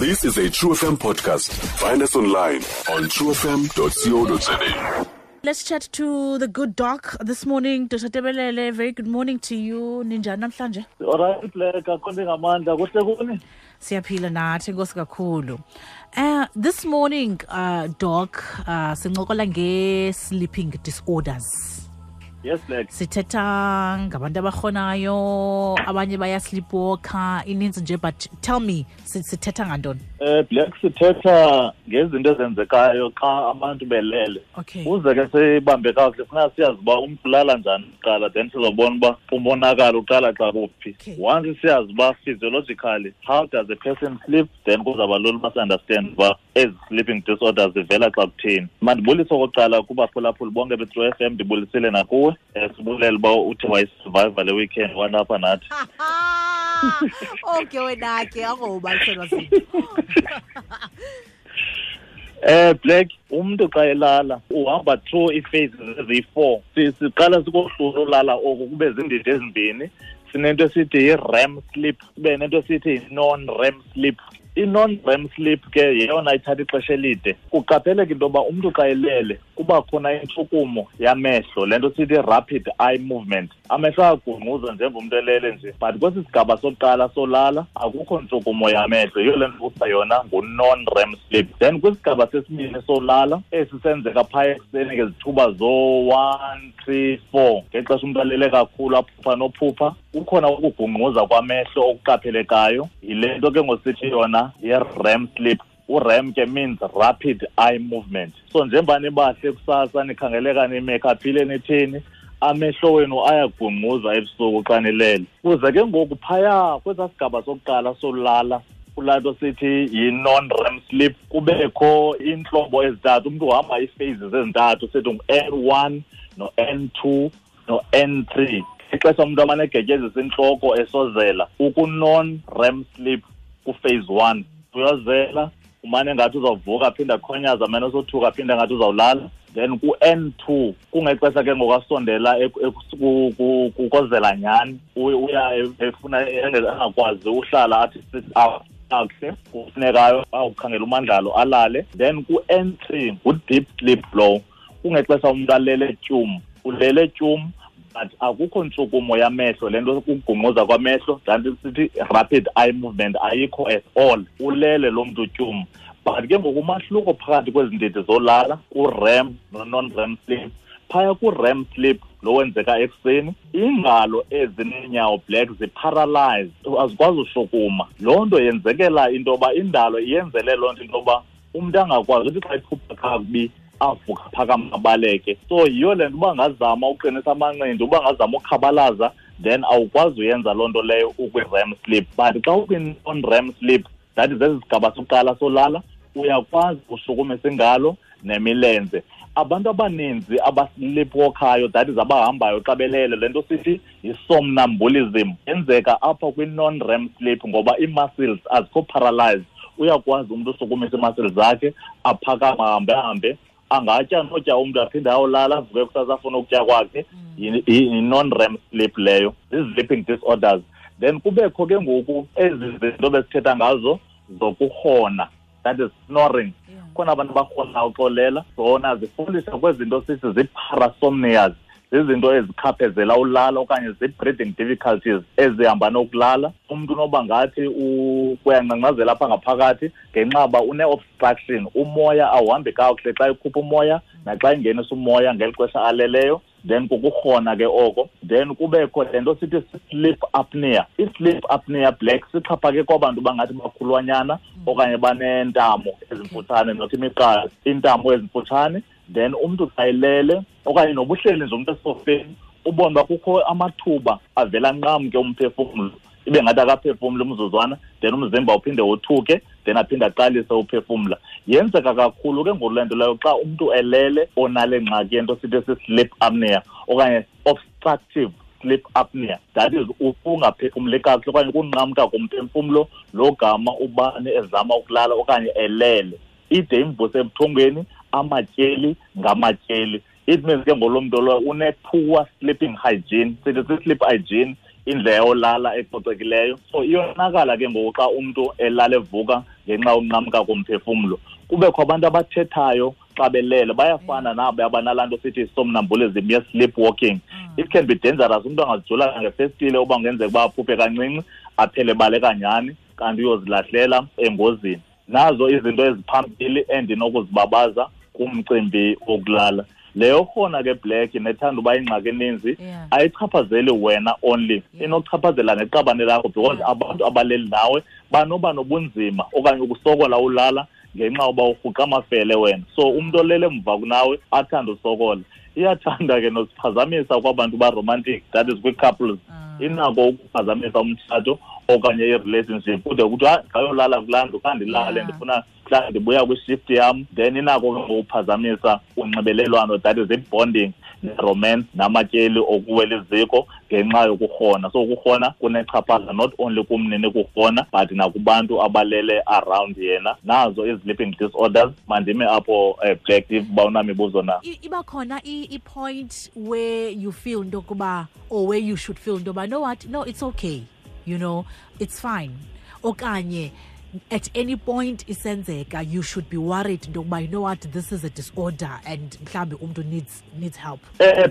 This is a True FM podcast. Find us online on truefm.co.za. Let's chat to the good doc this morning. Dr. Tebelele, very good morning to you. Ninjani namhlanje? Alright, Black, akho ngamandla kuhle kuni? Siyaphila nathi, enkosi kakhulu. This morning, doc, sincokola nge-sleeping disorders. Yes, Black. Sithetha ngabantu abarhonayo, abanye baya sleepwalker, ininzi nje, but tell me, sithetha ngantoni? Black, sithetha ngezinto ezenzekayo xa abantu belele. Okay. Uze ke sibambe kakuhle, funa siyazi uba umntu ulala njani kuqala, then sizobona uba umonakalo uqala xa kuphi. Okay. Once siyazi uba physiologically how does a person sleep, then kuzawuba lula uba si-understand uba ezi sleeping disorders zivela xa kutheni. Mandibulise okokuqala kubaphulaphuli bonke be-True FM, ndibulisile nakuwe. Sibulela uba uthe wayisurviva le weekend walapha nathi. Okay, wena ke akubaliselwa zinto. Black, umuntu xa elala uhamba through ii-phases eziyi-4. Siqala sikohlula ulala oku kube zindidi ezimbini. Sinento esithi yi-REM sleep, kube nento esithi yi-non-REM sleep. I-non-REM sleep ke yeyona ithatha ixesha elide. Kuqapheleka into yoba umntu xa elele kuba khona intshukumo yamehlo, le nto sithi rapid eye movement. Amehlo ayagungquza njengomntu elele nje, but kwesi sigaba sokuqala solala akukho ntshukumo yamehlo. Yiyo le nto kuthiwa yona ngu-non-REM sleep. Then kwisigaba sesibini solala, esi senzeka phaya ekuseni ngezithuba zo-1, 3, 4, ngexesha umntu alele kakhulu aphupha nophupha, kukhona ukugungquza kwamehlo okuqaphelekayo. Yile nto ke ngosithi yona yi-REM sleep. U-REM ke means rapid eye movement. So njengoba nibahle kusasa nikhangeleka nimekhaphile nithini, amehlo wenu ayagungquza ebusuku xa nilele. Kuze ke ngoku phaya kwesaa sigaba sokuqala solala, kulaa nto sithi yi-non-REM sleep, kubekho iintlobo ezintathu. Umntu uhamba ii-phases ezintathu, sithi ngu-N1 no-N2 no-N3. Ixesha umntu amane egetyezisa intloko esozela, uku-non-REM sleep ku-phase 1. Uyozela, umane ngathi uzawuvuka aphinde akhonyaze, amane esothuka aphinde ngathi uzawulala. Then ku-N2 kungexesha ke ngoku asondela kukozela nyhani, uya efuna angakwazi uhlala athi sit up kakuhle, kufuneka awukhangela umandlalo alale. Then ku-N3 ngu-deep sleep lowo, kungexesha umntu alele tyum, ulele tyum but akukho ntshukumo yamehlo, le nto kugungquza kwamehlo, kanti sithi rapid eye movement ayikho at all, ulele lo mntu tyum. But ke ngoku umahluko phakathi kwezi ndidi zolala, ku-REM no-non-REM sleep, phaya ku-REM sleep lo wenzeka ekuseni, iingalo ezineenyawo black ziparalyzed, azikwazi ushukuma. Loo nto yenzekela into yoba indalo iyenzele loo nto into yoba umntu angakwazi uthi xa iphupha kakubi avuka phakama abaleke. So yiyo le nto uba ngazama uqinisa amanqindi, uba ngazama ukhabalaza, then awukwazi uyenza loo nto leyo ukwi-REM sleep. But xa ukwi-non-REM sleep, that is esi sigaba sokuqala solala, uyakwazi ushukumisa ingalo nemilenze. Abantu abaninzi abasleepwalkayo, that is abahambayo xa belele, le nto sithi yi-somnambulism, yenzeka apha kwi-non-REM sleep ngoba ii-muscles azikho paralyzed. Uyakwazi umntu ushukumisa ii-muscles zakhe, aphakame ahambe ahambe, angatya notya umntu aphinde ayolala, avuke kusasa afune ukutya kwakhe. Yi-non-REM sleep leyo, zii-sleeping disorders. Then kubekho ke ngoku ezi zinto besithetha ngazo zokurhona, that is snoring. Khona abantu abarhonayo uxolela, zona zifundisa kwezinto sithi zii-parasomnias, zizinto ezikhaphezela ulala okanye zii-breathing difficulties ezihamba nokulala. Umntu unoba ngathi uyangcangcazela apha ngaphakathi ngenxa yoba une-obstruction, umoya awuhambi kakuhle xa ekhupha umoya naxa engenisa umoya ngeli xesha aleleyo. Then kukurhona ke oko. Then kubekho le nto sithi sleep apnea. I-sleep apnea black sixhaphake kwabantu bangathi bakhulwanyana okanye baneentamo ezimfutshane, not imiqala, iintamo ezimfutshane. Then umntu xa elele okanye nobuhleli nje umntu esofeni, ubone uba kukho amathuba avela nqamke umphefumlo, ibe ngathi akaphefumli umzuzwana, then umzimba uphinde wothuke, then aphinde aqalise uphefumla. Yenzeka kakhulu ke ngoku le nto leyo xa umntu elele onale ngxaki yento sithi si-sleep apnea okanye obstructive sleep apnea, that is ukungaphefumli kakuhle okanye ukunqamka komphefumlo lo gama ubani ezama ukulala okanye elele. Ide imvuse ebuthongweni, amatyeli ngamatyeli. It means ke ngolo mntu lowo une-poor sleeping hygiene, sithi si-sleep hygiene Indlela yolala ecocekileyo. So iyonakala ke ngoku xa umntu elala evuka ngenxa yokunqamka komphefumlo. Kubekho abantu abathethayo xa belele, bayafana nabo abanalaa nto sithi somnambulism ye-sleep walking. It can be dangerous, umntu angazijula ngefestile uba kungenzeka uba aphuphe kancinci, aphele baleka nyhani, kanti uyozilahlela engozini. Nazo izinto eziphambili endinokuzibabaza kumcimbi wokulala. Leyo khona ke Black nethanda uba ingxaki eninzi, ayichaphazeli wena only, inokuchaphazela neqabane lakho, because abantu abaleli nawe banoba nobunzima okanye ukusokola ulala ngenxa yoba urhuqa amafele wena. So umntu olele emva kunawe athande usokola. Iyathanda ke nosiphazamisa kwabantu ba-romantic, that is kwi-couples. Inako ukuphazamisa umtshato okanye i-relationship, kude kuthiwa ngayolala kulaa ndlu, khandilale, ndifuna mhlawumbi ndibuya kwishift yam. Then inako ke ngokuphazamisa unxibelelwano, that is i-bonding, ne-romance, namatyeli okuwela iziko ngenxa yokurhona. So ukurhona kunechaphaza not only kumnini kurhona but nakubantu abalele around yena. Nazo i-sleeping disorders. Mandime apho, Black, uba unamibuzo na. Iba khona i-point where you feel into yokuba, or where you should feel into yoba, no what, no, it's okay, it's fine, okanye at any point isenzeka you should be worried into yokuba, you know what, this is a disorder and mhlawumbi umntu needs help?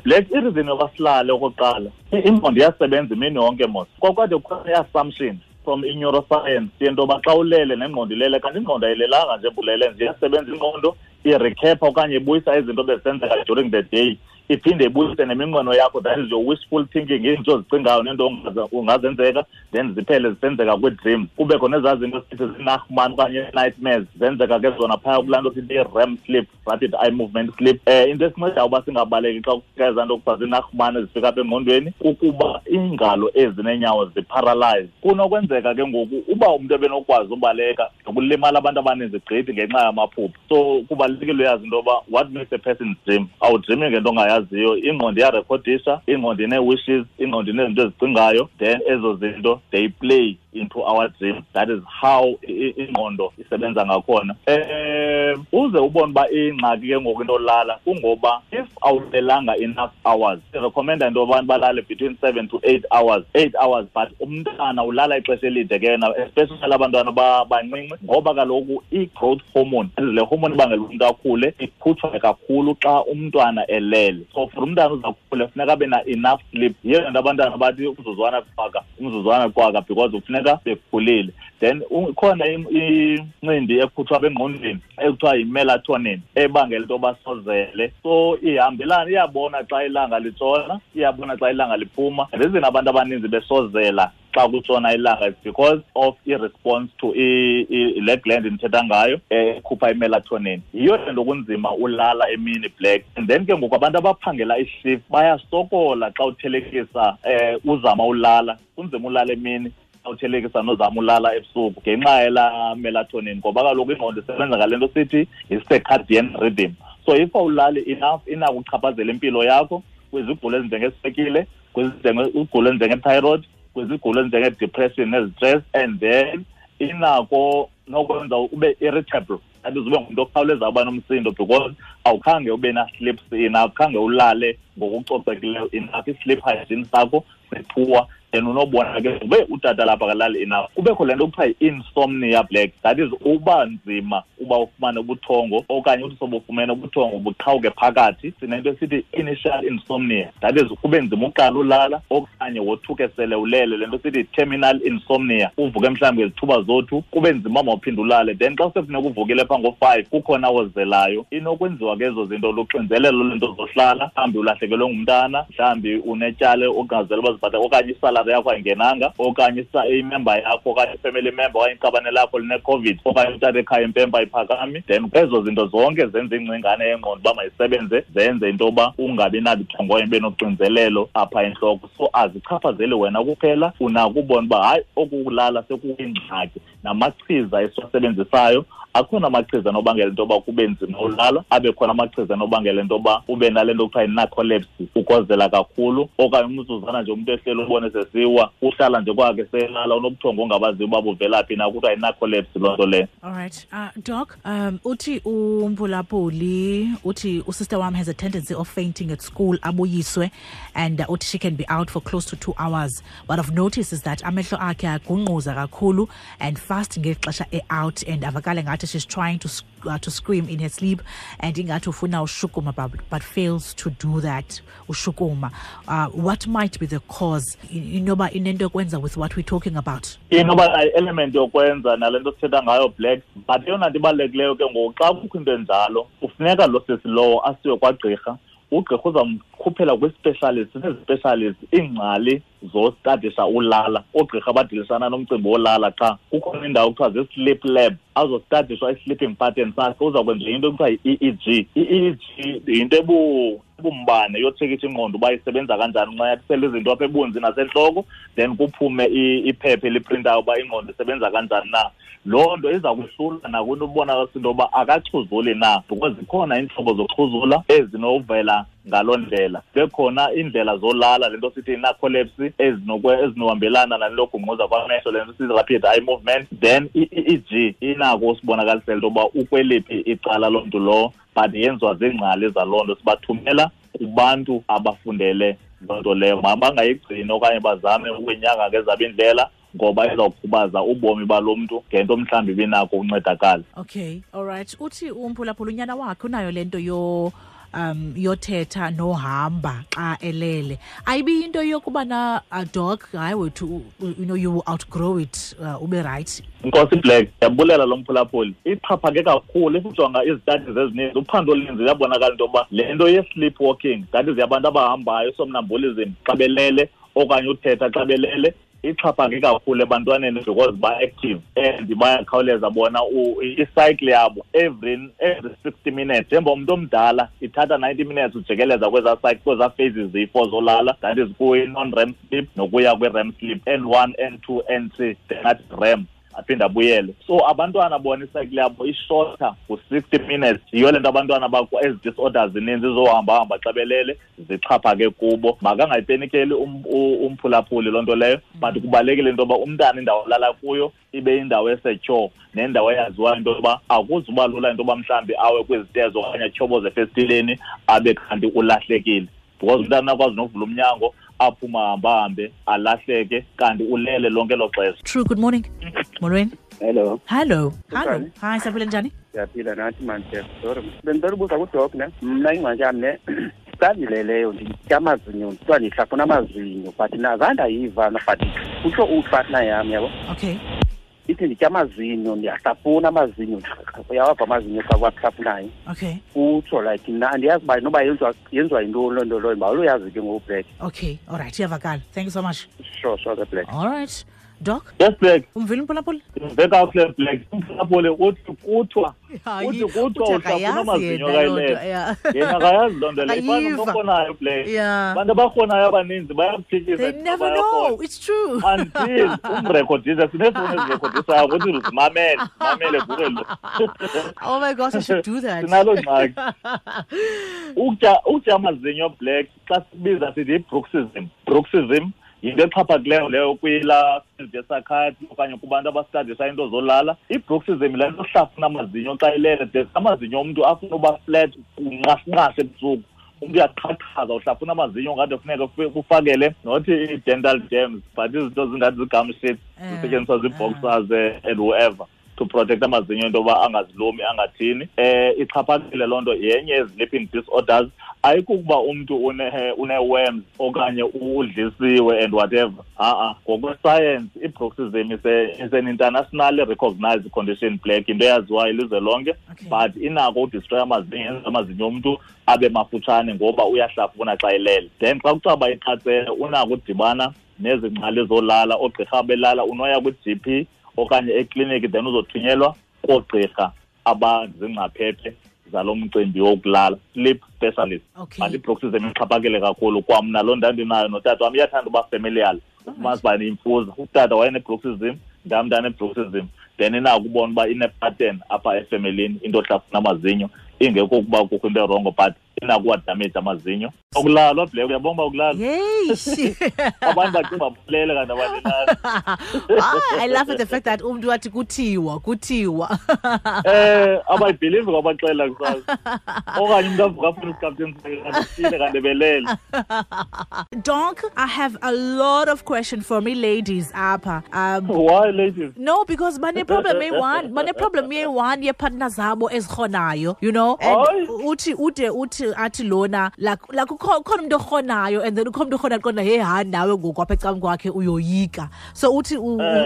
Black, i-reason yoba silale, okokuqala, ingqondo iyasebenza imini yonke mos. Kwakwade kukhona i-assumption from i-neuroscience yento yoba xa ulele nengqondo ilele, kanti ingqondo ayilelanga nje, bulele nje, iyasebenza ingqondo, irecapha okanye ibuyisa izinto bezisenzeka during the day, iphinde ibuyise neminqweno yakho, that is your wishful thinking, izinto ozicingayo nento ungazenzeka, then ziphele zisenzeka kwii-dreams. Kubekho nezaa zinto sithi zinahman okanye nightmares, zenzeka ke zona phaya kulaa nto sithi i-REM sleep, rapid eye movement sleep. Into esincedayo uba singabaleki xa kufika ezaa nto kuthiwa zinahman ezifika apha engqondweni kukuba iingalo ezineenyawo ziparalyze. Kunokwenzeka ke ngoku uba umntu ebenokwazi ubaleka, nokulimala abantu abaninzi gqithi ngenxa yamaphupha. So kubalulekile uyazi into yoba what makes a person dream. Awudreami ngento ongayaziyo, ingqondo iyarekhodisha, ingqondo inee-wishes, ingqondo inezinto ezicingayo, then ezo zinto they play into our dream. That is how ingqondo isebenza ngakhona. Uze ubone uba ingxaki ke ngoku into olala kungoba if awulelanga enough hours, sirecommenda into yoba abantu balale between 7 to 8 hours, 8 hours, but umntana ulala ixesha elide ke yena, especially abantwana bancinci, ngoba kaloku i-growth hormone, le hormone ibangela umntu akhule, ikhutshwa kakhulu xa umntwana elele. So for umntana uzakhula funeka abe na enough sleep. Yiyo nto abantwana bathi umzuzwana qwaka, umzuzwana qwaka, because kufuneka bekhulile. Then ikhona incindi ekhutshwa apha engqondweni ekuthiwa yi-melatonin ebangela into yoba sozele. So ihambelana, iyabona xa ilanga litshona, iyabona xa ilanga liphuma. Reason abantu abaninzi besozela xa kutshona ilanga is because of i-response to le gland ndithetha ngayo ekhupha i-melatonin. Yiyo le nto kunzima ulala emini, Black. And then ke ngoku abantu abaphangela ishift bayasokola xa uthelekisa, uzama ulala, kunzima ulala emini xa uthelekisa nozama ulala ebusuku ngenxa yelaa melatonin, ngoba kaloku ingqondo isebenza ngale nto sithi yi-circadian rhythm. So if awulali enough, inako ukuchaphazela impilo yakho kwizigulo ezinjengeswekile, kwizigulo ezinjenge-thyroid, kwizigulo ezinjenge-depression nezi-stress, and then inako nokwenza ube irritable, that is ube ngumntu okhawulezayo uba nomsindo, because awukhange ube na-sleep enough, khange ulale ngokucocekileyo enough, i-sleep hygiene sakho sipoor. Then unobona ke ube utata lapha akalali enough. Kubekho le nto kuthiwa yi-insomnia, Black, that is uba nzima uba ufumane ubuthongo okanye uthi sobufumene ubuthongo buqhawuke phakathi. Sinento esithi initial insomnia, that is kube nzima uqala ulala okanye wothuke sele ulele, le nto sithi terminal insomnia, uvuke mhlawumbi ngezithuba zothu kube nzima mawuphinde ulale. Then xa sekufuneka uvukile phaa ngo-5 kukhona ozelayo. Inokwenziwa ke ezo zinto luxinzelelo lwento zohlala, mhlawumbi ulahlekelwe ngumntana, mhlawumbi unetyala ongazela uba zibhatale, okanye isalari yakho ayingenanga, okanye imember yakho okanye ifamily member okanye iqabane lakho line-COVID, okanye utata ekhaya impempe ayiphakami. Then ezo zinto zonke zenza ingcingane yengqondo uba mayisebenze, zenze into yoba ungabi nabuthongo ibe noxinzelelo apha entloko. So azichaphazeli wena kuphela, unako ubona uba hayi oku kulala sekuyingxaki. Namachiza esiwasebenzisayo, akhona amachiza anobangela into yoba kube nzima ulala, abe khona amachiza anobangela into yoba ube nale nto kuthiwa yi-narcolepsy, ukozela kakhulu, okanye umzuzwana nje umntu ehleli ubone sesiwa, uhlala nje kwakhe selala, unobuthongo ongabaziyo uba buvela phi na, kuthiwa yi-narcolepsy loo nto leyo. All right. Doc, uthi uMpulapuli, uthi usister wam has a tendency of fainting at school, abuyiswe, and uthi she can be out for close to 2 hours. What I've noticed is that amehlo akhe agungquza kakhulu and fast ngexesha e-out, and avakale ngathi she's trying to scream in her sleep, and ingathi ufuna ushukuma but fails to do that, ushukuma. What might be the cause? Inoba inento yokwenza with what we're talking about? Inoba element yokwenza nale nto sithetha ngayo, Black, but eyona nto ibalulekileyo ke ngoku, xa kukho into enjalo, kufuneka lo sisi lowo asiwe kwagqirha. Ugqirha uzamkhuphela kwi-specialist, sinezi-specialist, iingcali zostadisha ulala, oogqirha abadilisana nomcimbi wolala. Qha kukhona indawo kuthiwa zii-sleep lab, azostadishwa i-sleeping pattern sakhe. Uzakwenza into ekuthiwa yi-EEG. I-EEG yinto ebumbane yotshekisha ingqondo uba isebenza kanjani, uncatyisela izinto apha ebunzi nasentloko, then kuphume iphepha eliprintayo uba ingqondo isebenza kanjani na. Loo nto iza kuhlula nakwinto ubonakalisa into yoba akaxhuzuli na, because zikhona iintlobo zoxhuzula ezinovela ngaloo ndlela. Bekhona iindlela zolala, le nto sithi narcolepsy, ezinohambelana nale nto yogungquza kwamehlo, le nto sithi rapid eye movement. Then i-EEG inako usibonakalisela into yoba ukweliphi icala loo mntu lowo, but yenziwa ziingcali zaloo nto, sibathumela kubantu abafundele loo nto leyo. Mabangayigcini okanye bazame ukuyinyanga ngezabo iindlela, ngoba izawukhubaza ubomi balo mntu ngento mhlawumbi ibinako uncedakala. Okay, all right. Uthi umphulaphula unyana wakhe unayo le nto yothetha nohamba xa elele. Ayibi into yokuba na dog, hayi wethu, you know, you will outgrow it, ube right. Nkosi Black, ndiyabulela lo mphulaphuli. Ixhaphake kakhulu if ujonga izitadi ezininzi, uphando oluninzi luyabonakala into yoba le nto ye-sleep walking, that is yabantu abahambayo, somnambulism xa belele okanye uthetha xa belele, ixhaphake kakhulu ebantwaneni because ba-active and bayakhawuleza bona i-cycle yabo every 60 minutes. Njengoba umntu omdala ithatha 90 minutes ujikeleza kwezaa cycle, kwezaa phases ziyi-4 zolala, that is kwi-non-REM sleep nokuya kwi-REM sleep, N1, N2, N3, then athi REM, aphinde abuyele. So abantwana bona icycle yabo ishorter ku-60 minutes. Yiyo le nto abantwana bakho ezi disorders zininzi zizohamba-hamba xa belele zixhaphake kubo. Makangayipenikeli umphulaphuli loo nto leyo, but kubalulekile into yoba umntana indawo alala kuyo ibe indawo esecure nendawo eyaziwayo into yoba akuzuba lula into yoba mhlawumbi awe kwizitezo okanye atyhoboze efestileni abe kanti ulahlekile, because umntana akwazi nokuvula umnyango aphuma hambahambe alahleke kanti ulele lonke elo xesha. True, good morning. Molweni. Hello. Hello. Hello. Hi, siyaphila njani? Siyaphila nathi man, sorry. Bendicela ubuza kuDoc ne. Mna ingxaki yam ne, xa ndileleyo nditya amazinyo, kuthiwa ndihlafuna amazinyo, but nazange ndayiva, but kutsho upartner yam, yabo. Okay. Ithi nditya amazinyo, ndiyahlafuna amazinyo, uyawava amazinyo xa uwahlafunayo. Okay. Utsho like mna andiyazi uba noba yenziwa yintoni loo nto leyo, uba uyazi ke ngoku Black. Okay, all right, iyavakala. Thank you so much. Sure, sure, the Black. All right. Doc? Yes, Black. Umvile umphulaphuli? Ndimve kakuhle, Black. Umphulaphuli uthi kuthiwa, uthi kuthiwa uhlafuna amazinyo kayilele. Yena akayazi loo nto leyo. Ifana nomntu orhonayo, Black. Abantu abarhonayo abaninzi bayakuphikisa. They never know. It's true. Until umrekhodise, sineefowuni ezirekhodisayo ukuthi uzimamele, mamele kuwe lo. Oh my gosh, I should do that. Sinaloo ngxaki. Ukutya amazinyo, Black, xa sibiza sithi yi-bruxism. Bruxism yinto exhaphakileyo leyo kwilaa field ye-psychiatry okanye kubantu abastadisha into zolala. I-bruxism le nto ohlafuna amazinyo xa ilele, de amazinyo omntu afuna uba flat kunqashinqashe ebusuku. Umntu uyaqhaqhaza, uhlafuna amazinyo ngathi kufuneka kufakele not i-dental dams, but izinto zingathi zii-gum sheets zisetyenziswa zii-boxers and whoever to protect amazinyo into yoba angazilumi angathini. Ixhaphakile loo nto, yenye ye-sleeping disorders. Ayikukuba umntu une-worms okanye udlisiwe and whatever. Ha-a, ngokwesayensi i-bruxism is an internationally recognized condition, Black, into eyaziwayo ilizwe lonke. Okay. But inako udestroy amazinyo, yenza amazinyo omntu abe mafutshane ngoba uyahlafuna xa elele. Then xa kucaba iqatsele unako udibana nezingcali zolala, oogqirha belala, unoya kwi-GP okanye ekliniki, then uzothunyelwa koogqirha abazingcaphephe zalo mcimbi wokulala, sleep specialist. Okay. But i-bruxism ixhaphakile kakhulu. Kwamna loo ndandinayo notata wam, iyathanda uba familial. Ufumanisa uba ndiyimfuza. Utata wayenebruxism, ndam ndanebruxism. Then inako ubona uba ine-pattern apha efemelini into ohlafuna amazinyo, ingekho ukuba kukho into erongo, but inakuwadamage amazinyo. Akulalwa Black, uyabona uba akulalwa. Yeyish. Abantu bacinga balele kanti abalelanga. I love the fact that umntu wathi kuthiwa. Abayibhilivi kwabaxelela kusasa. Okanye umntu avuka afune isikapteni sakhe kanti belele. Doc, I have a lot of questions for me ladies apha. Why ladies? No, because bane problem eyi-one, bane problem eyi-one yepartner zabo ezikhonayo, you know. And uthi ude uthi athi lona like ukhona umuntu okhonayo, and then ukhona umuntu okhona qonda hey ha nawe ngoku apha ecam kwakhe uyoyika. So uthi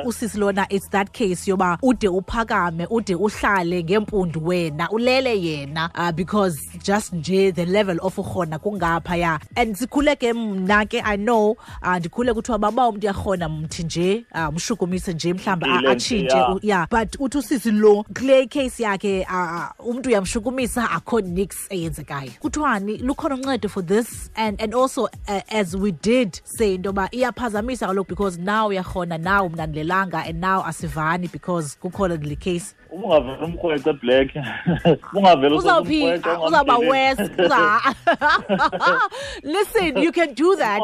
usisi lona, it's that case yoba ude uphakame, ude uhlale ngempundu wena, ulele yena, because just nje the level of ukhona kungapha ya. And sikhule ke mna ke, I know, ndikhule kuthiwa baba umuntu uyakhona mthi nje, umshukumise nje mhlamba atshintshe, yeah. But uthi usisi lo kule case yakhe, umuntu uyamshukumisa akho nix eyenzekayo. Kuthiwani lukhona uncedo for this? And also as we did say ntoba iyaphazamisa kaloku, because now uyakhona, now mna ndilelanga, and now asivani because kukhona le case. Ungavela umkhwece Black. Ungavela uzawuphi, uzawuba worse. Listen, you can do that.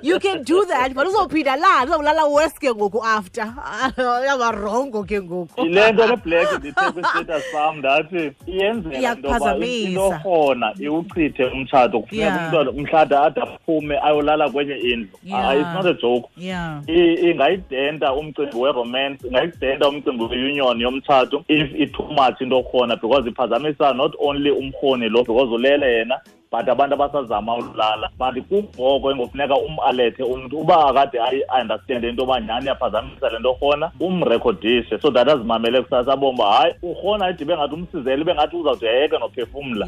You can do that, but uzawuphinda la, uzawulala worse ke ngoku after. Uyaba wrong ke ngoku. Le nto le Black ndithe kwi-status sam ndathi iyenzeka intoba into khona iwuchithe umtshato, kufuneka umntwana umhlada ade aphume ayolala kwenye indlu. It's not a joke. Ingayidenta umcimbi we-romance, ingayidenta umcimbi we-union yomtshato if it too much into khona, because iphazamisa not only umrhoni lo because ulele yena, but abantu abasazama ulala. But kungoko engofuneka umalethe umntu uba akade ayi-understand into yoba nyhani iyaphazamisa le nto khona, umrekhodishe so that azimamele kusasa abone uba hayi urhona ide ibe ngathi umsizele, ibe ngathi uzawude ayeke nophefumla.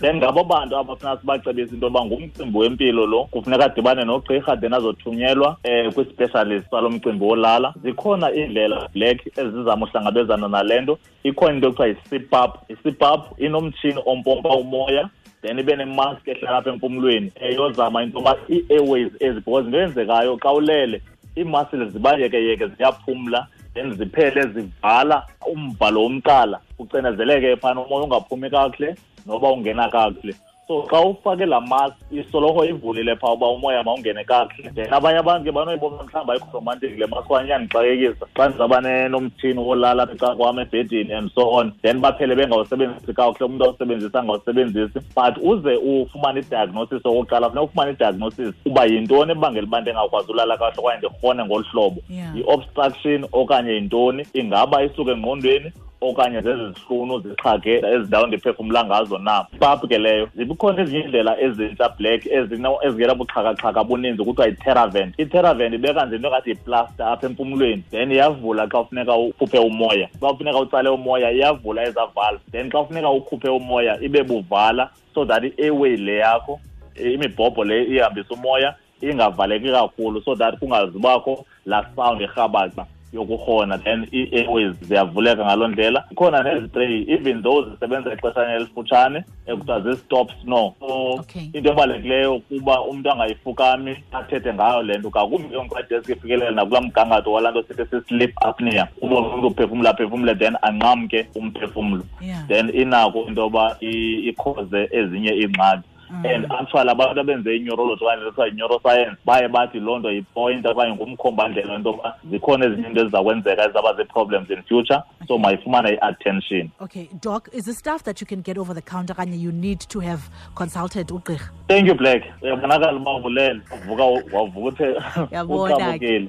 Then ngabo bantu abafuna sibacebise into yoba ngumcimbi wempilo lo, kufuneka adibane nogqirha, then azothunyelwa kwi-specialist salo mcimbi wolala. Zikhona iindlela Black ezizama uhlangabezana nale nto. Ikhona into ekuthiwa yi-CPAP. I-CPAP inomtshini ompompa umoya, then ibe nemask ehlala apha empumlweni eyozama into yoba ii-airways ezi, because into eyenzekayo xa ulele ii-muscles zibayekeyeke ziyaphumla, then ziphele zivala umbhalo womqala, ucinezeleke phana umoya ungaphumi kakuhle noba ungena kakuhle. So xa ufake laa mask isoloko ivulile phaa uba umoya mawungene kakuhle. Then abanye abantu ke banoyibona mhlawumbi ayikho romantic le mask, okanye iyandixakekisa xa ndizawuba nomtshini wolala apha ecaleni kwam ebhedini and so on. Then baphele bengawusebenzisi kakuhle, umntu awusebenzisi angawusebenzisi. But uze ufumane i-diagnosis okokuqala, funeka ufumane i-diagnosis uba yintoni ebangela uba ndingakwazi ulala kakuhle okanye ndirhone ngolu hlobo. Yi-obstruction okanye yintoni, ingaba isuka engqondweni okanye zezi zihlunu zixhage ezindawo ndiphefumla ngazo na. Pap ke leyo. Zikhona ezinye iindlela ezintsha Black ezingena buxhakaxhaka buninzi, kuthiwa yi-Theravent. I-Theravent ibeka nje into engathi yiplasta apha empumlweni, then iyavula xa ufuneka ukhuphe umoya. Xa ufuneka utsale umoya iyavula ezaa valve, then xa ufuneka ukhuphe umoya ibe buvala, so that i-airway le yakho, imibhobho le ihambisa umoya ingavaleki kakhulu, so that kungazubakho laa sound erhabaxa yokurhona, then ii-airways ziyavuleka ngaloo ndlela. Ikhona nezitreyi, even though zisebenza ixeshana elifutshane, ekuthiwa zii-stop snore. So into ebalulekileyo kuba umntu angayifukami athethe ngayo le nto, ngakumbi ke ngoku xa ifikelela nakulaa mgangatho walaa nto sithi si-sleep apnea, ubone umntu uphefumla aphefumle then anqamke umphefumlo. Then inako into yoba ikhoze ezinye iingxaki. And actually abantu abenze i-neurology okanye kuthiwa yi-neuroscience baye bathi loo nto yipoint okanye ngumkhombandlela into yoba zikhona ezinye into eziza kwenzeka ezizawuba zii-problems in future, so mayifumane i-attention. Okay, Doc, is this stuff that you can get over the counter okanye you need to have consulted ugqirha? Thank you, Black. Uyabonakala uba uvulele, uvuka wavuka uthe Uyabona ke.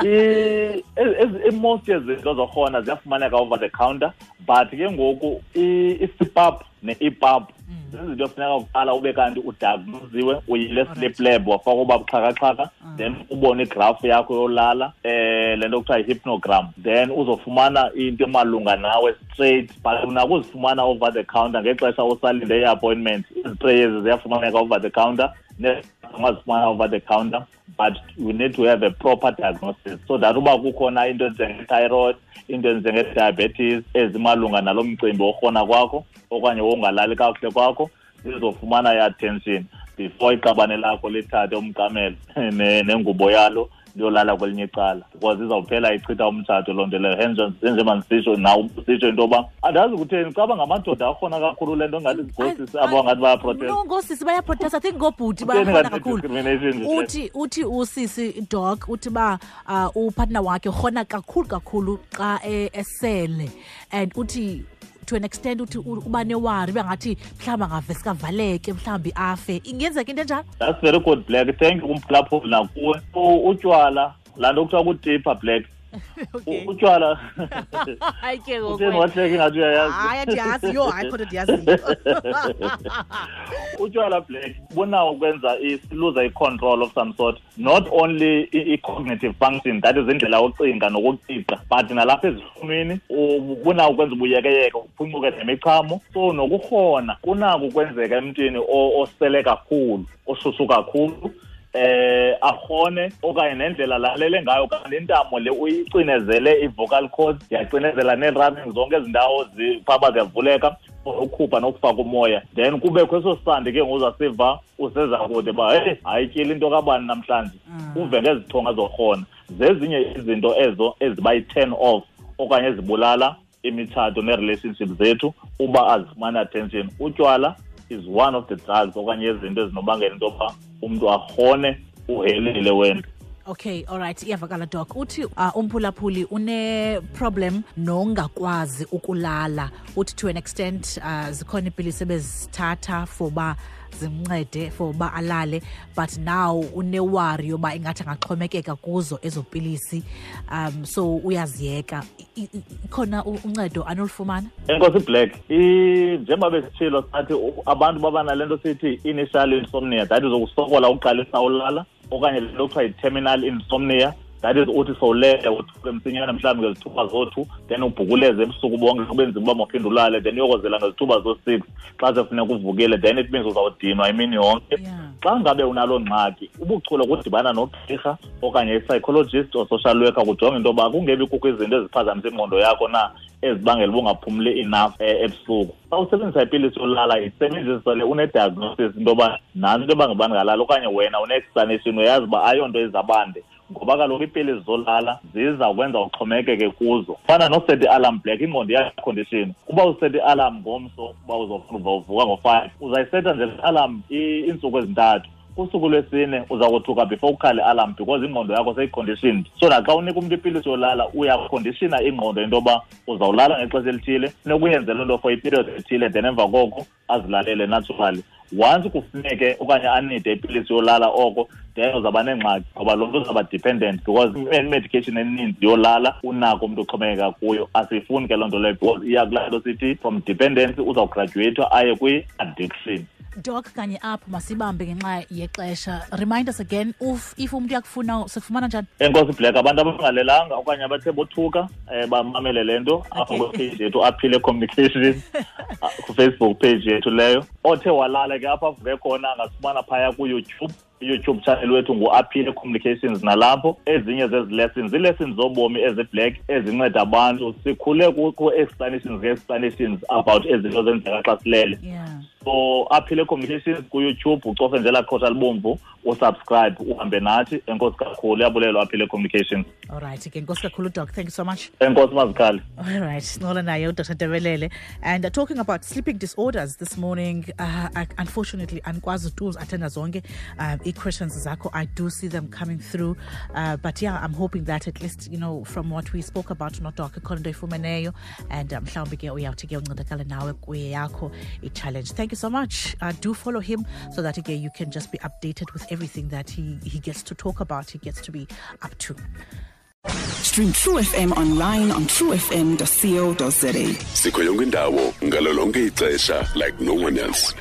uqabukile. I-most yezinto zorhona ziyafumaneka over the counter, but ke ngoku i-CPAP ne-EPAP zizinto efuneka kuqala ube kanti udiagnoziwe, uyile sleep lab, wafaka uba buxhakaxhaka, then ubone igrafu yakho yolala, le nto kuthiwa yi-hypnogram, then uzofumana into emalunga nawe straight. But unako uzifumana over the counter ngexesha usalinde i-appointment. Izitreyi ezi ziyafumaneka over the counter, ungazifumana over the counter, but you need to have a proper diagnosis so that uba kukhona into enjenge-thyroid, into enjenge-diabetes ezimalunga nalo mcimbi worhona kwakho okanye wongalali kakuhle kwakho, zizofumana i-attention before iqabane lakho lithathe umqamelo nengubo yalo. liyolala kwelinye icala, because izawuphela ichitha umtshato loo nto leyo. Njengoba ndisitsho nawe usitsho into yoba andazi kutheni caba ngamadoda akhona kakhulu le nto, ngathi ngoosisi abo ngathi bayaprotesta. No, ngoosisi bayaprotesta. I think ngoobhuti bayakhona kakhulu. Uthi usisi Doc uthi ba upartner wakhe urhona kakhulu kakhulu xa esele, and uthi to an extent uthi uba newari bengathi mhlawumbi angavesika avaleke, mhlawumbi afe. Ingenzeka into enjalo? That's very good, Black. Thank you kumphulaphuli nakuwe. Utywala, laa nto kuthiwa kutipha, Black. Utywala. Hayi ke ngoku. Utheni wahleka ingathi uyayazi? Hayi, andiyazi. Yho, hayi khona ndiyaziyo. Utywala, Black, bunawo ukwenza siluza i-control of some sort. Not only i-cognitive function, that is indlela yokucinga nokuqiqa, but nalapha ezihlumini bunawo ukwenza ubuyekeyeke, uphuncuke nemichamo. So nokurhona kunako ukwenzeka emntwini osele kakhulu, oshushu kakhulu, arhone, okanye nendlela lalele ngayo, okanye intamo le uyicinezele i-vocal cords, yacinezela nee-rubbing zonke ezi ndawo zifaba ziyavuleka, ukhupha nokufaka umoya. Then kubekho eso sandi ke ngoku uzasiva useza kude uba heyi, hayityile into kabani namhlanje, uve ngezithonga zorhona. Zezinye izinto ezo eziba yi-turn off okanye ezibulala imitshato nee-relationship zethu uba azifumani attention. Utywala is one of the drugs okanye izinto ezinobangela into yoba umntu arhone uhelile wena. Okay, all right, iyavakala Doc. Uthi umphulaphuli une-problem nongakwazi ukulala. Uthi to an extent zikhona iipilisi ebezithatha for uba zimncede for uba alale, but now unewari yoba ingathi angaxhomekeka kuzo ezo pilisi, so uyaziyeka. Ikhona uncedo anolufumana? Enkosi Black, njengoba besitshilo sathi abantu baba nale nto sithi initial insomnia, that is ukusokola uqalisa ulala, okanye le nto kuthiwa yi-terminal insomnia, that is uthi sowulele uthuke msinyane mhlawumbi ngezithuba zo-2, then ubhukuleze ebusuku bonke kube nzima uba mawuphinde ulale, then uyokozela ngezithuba zo-6 xa sefuneka uvukile, then it means uzawudinwa imini yonke. Xa ngabe unaloo ngxaki, ubuchule kudibana nogqirha okanye i-psychologist or social worker kujonge into yoba kungebi kukho izinto eziphazamisa ingqondo yakho na ezibangela uba ungaphumli enough ebusuku. Xa usebenzisa ipilisi yolala, isebenzisa le une-diagnosis into yoba nantsi into yoba ngubani ngalala, okanye wena une-explanation uyazi uba ayonto izabande, ngoba kaloku iipilisi zolala ziza kwenza uxhomekeke kuzo. Fana noseta i-alarm, Black, ingqondo iyacondition. Uba useta i-alarm ngomso uba uzovuka ngo-5, uzayiseta nje le alarm iintsuku ezintathu. Kusuku lwesine uza kothuka before ukhale i-alarm because ingqondo yakho seyiconditioned. So naxa unika umntu ipilisi yolala, uyakondishina ingqondo into yoba uzawulala ngexesha elithile, funeka uyenze loo nto for iperiod ethile, then emva koko azilalele naturally. Once kufuneke okanye anide ipilisi yolala oko, then uzawuba nengxaki ngoba loo mntu uzawuba dependent, because i-medication eninzi yolala unako umntu oxhomekeka kuyo. Asiyifuni ke loo nto leyo because iya kulaa nto sithi from dependency uzawugraduate aye kwi-addiction. Doc, kanye apho masibambe ngenxa yexesha. Remind us again, if umntu uyakufuna, sikufumana njani? Enkosi Black, abantu abangalelanga okanye abathe bothuka bamamele le nto apha kwipage yethu Aphile Communications, ku-Facebook page yethu leyo. Othe walala ke apha avuke khona angasifumana phaya ku-YouTube. YouTube channel wethu ngu-Aphile Communications, nalapho ezinye zezi lessons, ii-lessons zobomi ezi-black ezinceda abantu. Sikhule ku-explanations nge-explanations about ezinto zenzeka xa silele. So Aphile Communications ku-YouTube, ucofe nje elaa qhosha libomvu, usubscribe, uhambe nathi. Enkosi kakhulu, iyabulelwa Aphile Communications. All right, ke enkosi kakhulu Doc, thank you so much. Enkosi Mazikhali. All right, sincokola naye uDr Tebelele, and talking about sleeping disorders this morning. Unfortunately andikwazi tu uziathenda zonke ii-questions zakho. I do see them coming through, but yeah, I'm hoping that at least, you know, from what we spoke about noDoc, ikhona into oyifumeneyo, and mhlawumbi ke uyawuthi ke uncedakale nawe kweyakho i-challenge. Thank you so much. Do follow him so that again you can just be updated with everything that he gets to talk about, he gets to be up to. Stream True FM online on truefm.co.za. Sikho yonke indawo ngalo lonke ixesha like no one else.